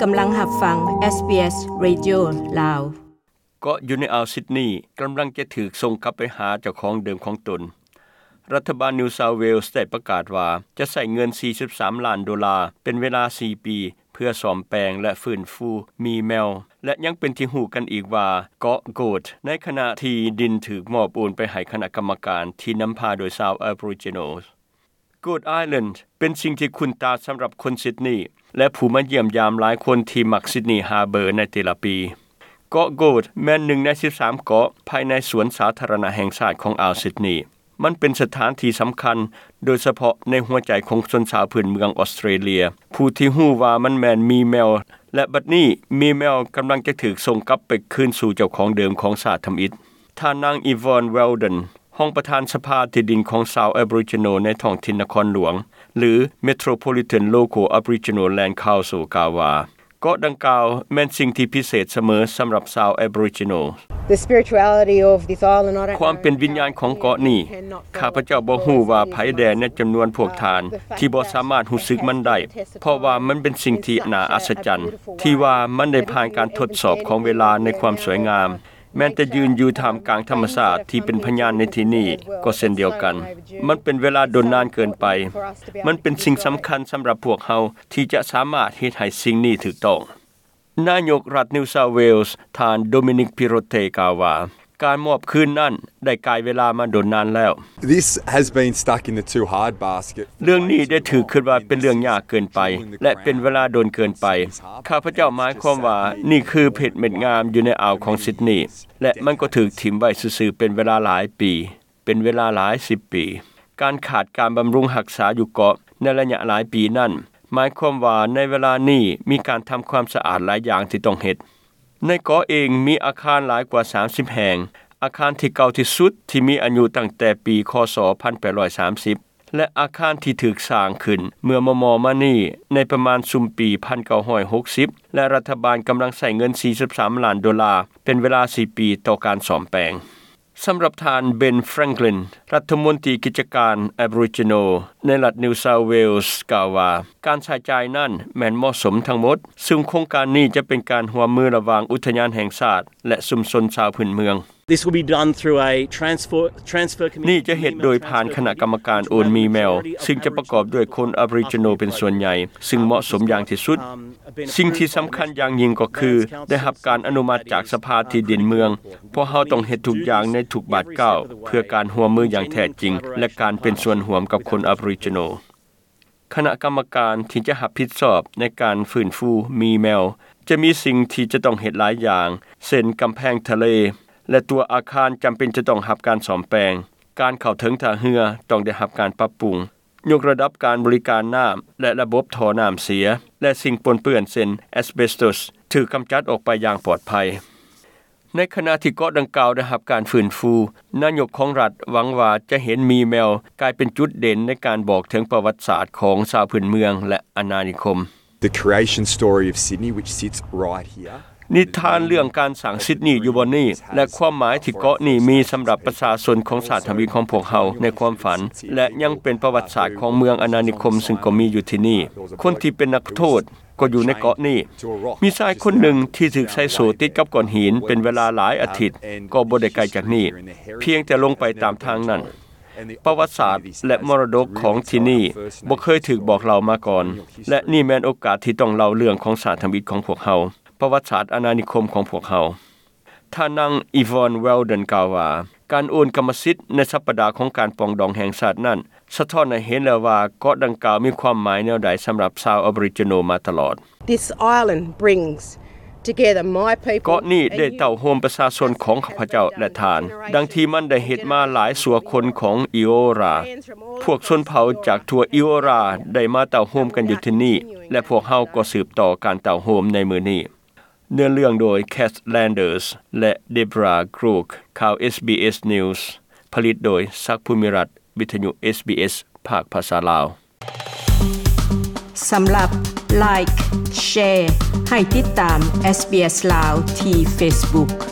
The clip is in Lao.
ກຳລັງຮັບຟັງ ເອສບີເອສ Radio ລາວ. ເກາະຢູ່ໃນອ່າວຊິດນີກຳລັງຈະຖືກສົ່ງກັບໄປຫາເຈົ້າຂອງເດີມຂອງຕົນ. ລັດຖະບານ New South Wales ໄດ້ປະກາດວ່າຈະໃຊ້ເງິນສີ່ສິບສາມລ້ານໂດລາເປັນເວລາສີ່ປີ ເພື່ອສ້ອມແປງ ແລະ ຟື້ນຟູໝີແມວ ແລະ ຍັງເປັນທີ່ຮູ້ກັນອີກວ່າເກາະ Goat ໃນຂະນະທີ່ດິນຖືກມອບໂອນໄປໃຫ້ຄະນະກຳມະການທີ່ນຳພາໂດຍຊາວ Aboriginal. Goat Island ເປັນສິ່ງທີ່ຄຸ້ນຕາສຳລັບຄົນຊິດນີ ແລະ ຜູ້ມາຢ້ຽມຢາມຫຼາຍຄົນທີ່ມັກ Sydney Harbour ໃນແຕ່ລະປີ. ເກາະ Goat ແມ່ນໜຶ່ງໃນສິບສາມເກາະພາຍໃນສວນສາທາລະນະແຫ່ງຊາດຂອງອ່າວຊິດນີ. ມັນເປັນສະຖານທີ່ສຳຄັນ ໂດຍສະເພາະໃນຫົວໃຈຂອງຊົນຊາວພື້ນເມືອງອອສເຕຣເລຍ ຜູ້ທີ່ຮູ້ວ່າມັນແມ່ນໝີແມວ ແລະ ບັດນີ້ໝີແມວກຳລັງຈະຖືກສົ່ງກັບໄປຄືນສູ່ເຈົ້າຂອງເດີມຂອງຊາດທຳອິດ. ທ່ານນາງ Yvonne Weldon ຮອງປະທານສະພາທີ່ດິນຂອງຊາວ Aboriginal ໃນທ້ອງຖິ່ນນະຄອນຫຼວງ ຫຼື Metropolitan Local Aboriginal Land Council ກ່າວວ່າ ເກາະດັ່ງກ່າວແມ່ນສິ່ງທີ່ພິເສດສະເໝີສຳລັບຊາວ Aboriginal. The spirituality of this island, I don't know. ຄວາມເປັນວິນຍານຂອງເກາະນີ້ ຂ້າພະເຈົ້າບໍ່ຮູ້ວ່າໃຜແດ່ໃນຈຳນວນພວກທ່ານທີ່ບໍ່ສາມາດຮູ້ສຶກມັນໄດ້ ເພາະວ່າມັນເປັນສິ່ງທີ່ໜ້າອັດສະຈັນ ທີ່ວ່າມັນໄດ້ຜ່ານການທົດສອບຂອງເວລາໃນຄວາມສວຍງາມ. ແມ່ນແຕ່ຢືນຢູ່ທ່າມກາງທຳມະຊາດທີ່ເປັນພະຍານໃນທີ່ນີ້ກໍເຊັ່ນດຽວກັນ. ມັນເປັນເວລາດົນນານເກີນໄປ. ມັນເປັນສິ່ງສຳຄັນສຳລັບພວກເຮົາທີ່ຈະສາມາດເຮັດໃຫ້ສິ່ງນີ້ຖືກຕ້ອງ. ນາຍົກລັດ New South Wales ທ່ານ Dominic Perrottet ກ່າວວ່າ ການມອບຄືນນັ້ນໄດ້ກາຍເວລາມາດົນນານແລ້ວ. This has been stuck in the too hard basket. ເລື່ອງນີ້ໄດ້ຖືກຄິດວ່າເປັນເລື່ອງຍາກເກີນໄປ ແລະ ເປັນເວລາດົນເກີນໄປ. ຂ້າພະເຈົ້າໝາຍຄວາມວ່ານີ້ຄືເພັດເມັດງາມຢູ່ໃນອ່າວຂອງຊິດນີ ແລະ ມັນກໍຖືກຖິ້ມໄວ້ຊື່ໆເປັນເວລາຫຼາຍປີ, ເປັນເວລາຫຼາຍສິບປີ. ການຂາດການບຳລຸງຮັກສາຢູ່ເກາະໃນໄລຍະຫຼາຍປີນັ້ນ ໝາຍຄວາມວ່າໃນເວລານີ້ມີການທຳຄວາມສະອາດຫຼາຍຢ່າງທີ່ຕ້ອງເຮັດ. ໃນເກາະເອງມີອາຄານຫຼາຍກວ່າສາມສິບແຫ່ງ. ອາຄານທີ່ເກົ່າທີ່ສຸດທີ່ມີອາຍຸຕັ້ງແຕ່ປີ ຄ.ສ. ພັນແປດຮ້ອຍສາມສິບ ແລະ ອາຄານທີ່ຖືກສ້າງຂຶ້ນເມື່ອມໍ່ໆມານີ້ໃນປະມານຊຸມປີ ພັນເກົ້າຮ້ອຍຫົກສິບ ແລະ ລັດຖະບານກຳລັງໃຊ້ເງິນສີ່ສິບສາມລ້ານໂດລາເປັນເວລາສີ່ປີຕໍ່ການສ້ອມແປງ. ສຳລັບທ່ານ Ben Franklin ລັດຖະມົນຕີກິດຈະການ Aboriginal ໃນລັດ New South Wales ກ່າວວ່າ ການໃຊ້ຈ່າຍນັ້ນແມ່ນເໝາະສົມທັງໝົດ, ຊຶ່ງໂຄງການນີ້ຈະເປັນການຮ່ວມມືລະຫວ່າງອຸທະຍານແຫ່ງຊາດ ແລະ ຊຸມຊົນຊາວພື້ນເມືອງ. This will be done through a transfer, transfer committee. ນີ້ຈະເຮັດໂດຍຜ່ານຄະນະກຳມະການໂອນໝີແມວ ຊຶ່ງຈະປະກອບດ້ວຍຄົນ Aboriginal ເປັນສ່ວນໃຫຍ່, ຊຶ່ງເໝາະສົມຢ່າງທີ່ສຸດ. ສິ່ງທີ່ສຳຄັນຢ່າງຍິ່ງກໍຄື ໄດ້ຮັບການອະນຸມັດຈາກສະພາທີ່ດິນເມືອງ. ພວກເຮົາຕ້ອງເຮັດທຸກຢ່າງໃນທຸກບາດກ້າວ ເພື່ອການຮ່ວມມືຢ່າງແທ້ຈິງ ແລະ ການເປັນສ່ວນຮ່ວມກັບຄົນ Aboriginal. ຄະນະກຳມະການທີ່ຈະຮັບຜິດຊອບໃນການຟື້ນຟູໝີແມວ ຈະມີສິ່ງທີ່ຈະຕ້ອງເຮັດຫຼາຍຢ່າງ ເຊັ່ນ ກຳແພງທະເລ ແລະ ຕົວອາຄານຈຳເປັນຈະຕ້ອງຮັບການສ້ອມແປງ. ການເຂົ້າເຖິງທ່າເຮືອຕ້ອງໄດ້ຮັບການປັບປຸງ. ຍົກລະດັບການບໍລິການນ້ຳ ແລະ ລະບົບທໍ່ນ້ຳເສຍ ແລະ ສິ່ງປົນເປື້ອນເຊັ່ນ asbestos ຖືກກຳຈັດອອກໄປຢ່າງປອດໄພ. ໃນຂະນະທີ່ເກາະດັ່ງກ່າວໄດ້ຮັບການຟື້ນຟູ, ນາຍົກຂອງລັດຫວັງວ່າຈະເຫັນໝີແມວກາຍເປັນຈຸດເດັ່ນໃນການບອກເຖິງປະຫວັດສາດຂອງຊາວພື້ນເມືອງ ແລະ ອານານິຄົມ. The creation story of Sydney, which sits right here. ນິທານເລື່ອງການສ້າງຊິດນີຢູ່ບ່ອນນີ້ ແລະ ຄວາມໝາຍທີ່ເກາະນີ້ມີສຳລັບປະຊາຊົນຂອງຊາດທຳອິດຂອງພວກເຮົາໃນຄວາມຝັນ ແລະ ຍັງເປັນປະຫວັດສາດຂອງເມືອງອານານິຄົມ ຊຶ່ງກໍມີຢູ່ທີ່ນີ້. ຄົນທີ່ເປັນນັກໂທດກໍຢູ່ໃນເກາະນີ້. ມີຊາຍຄົນໜຶ່ງທີ່ຖືກໃສ່ໂສ້ຕິດກັບກ້ອນຫີນເປັນເວລາຫຼາຍອາທິດ, ກໍບໍ່ໄດ້ໄກຈາກນີ້, ພຽງແຕ່ລົງໄປຕາມທາງນັ້ນ. ປະຫວັດສາດ ແລະ ມໍລະດົກຂອງທີ່ນີ້ບໍ່ເຄີຍຖືກບອກເລົ່າມາກ່ອນ ແລະ ນີ້ແມ່ນໂອກາດທີ່ຕ້ອງເລົ່າເລື່ອງຂອງຊາດທຳອິດຂອງພວກເຮົາ, ປະຫວັດສາດອານານິຄົມຂອງພວກເຮົາ. ທ່ານນາງ Yvonne Weldon ກ່າວວ່າ ການໂອນກຳມະສິດໃນສັບປະດາຂອງການປອງດອງແຫ່ງຊາດນັ້ນ ສະທ້ອນໃຫ້ເຫັນແລ້ວວ່າເກາະດັ່ງກ່າວມີຄວາມໝາຍແນວໃດສຳລັບຊາວ Aboriginal ມາຕະຫຼອດ. This island brings together my people. ເກາະນີ້ໄດ້ເຕົ້າໂຮມປະຊາຊົນຂອງຂ້າພະເຈົ້າ ແລະ ທ່ານ, ດັ່ງທີ່ມັນໄດ້ເຮັດມາຫຼາຍຊົ່ວຄົນຂອງ Eora. ພວກຊົນເຜົ່າຈາກທົ່ວ Eora ໄດ້ມາເຕົ້າໂຮມກັນຢູ່ທີ່ນີ້ ແລະ ພວກເຮົາກໍສືບຕໍ່ການເຕົ້າໂຮມໃນມື້ນີ້. ເນື້ອເລື່ອງໂດຍ Cath Landers ແລະ Deborah Crook. ຂ່າວ SBS News ຜະລິດໂດຍ ສັກ ພູມິລັດ, ວິທະຍຸ SBS ພາກພາສາລາວ. ສຳລັບ Like, Share ໃຫ້ຕິດຕາມ SBS ລາວ ທີ່ Facebook.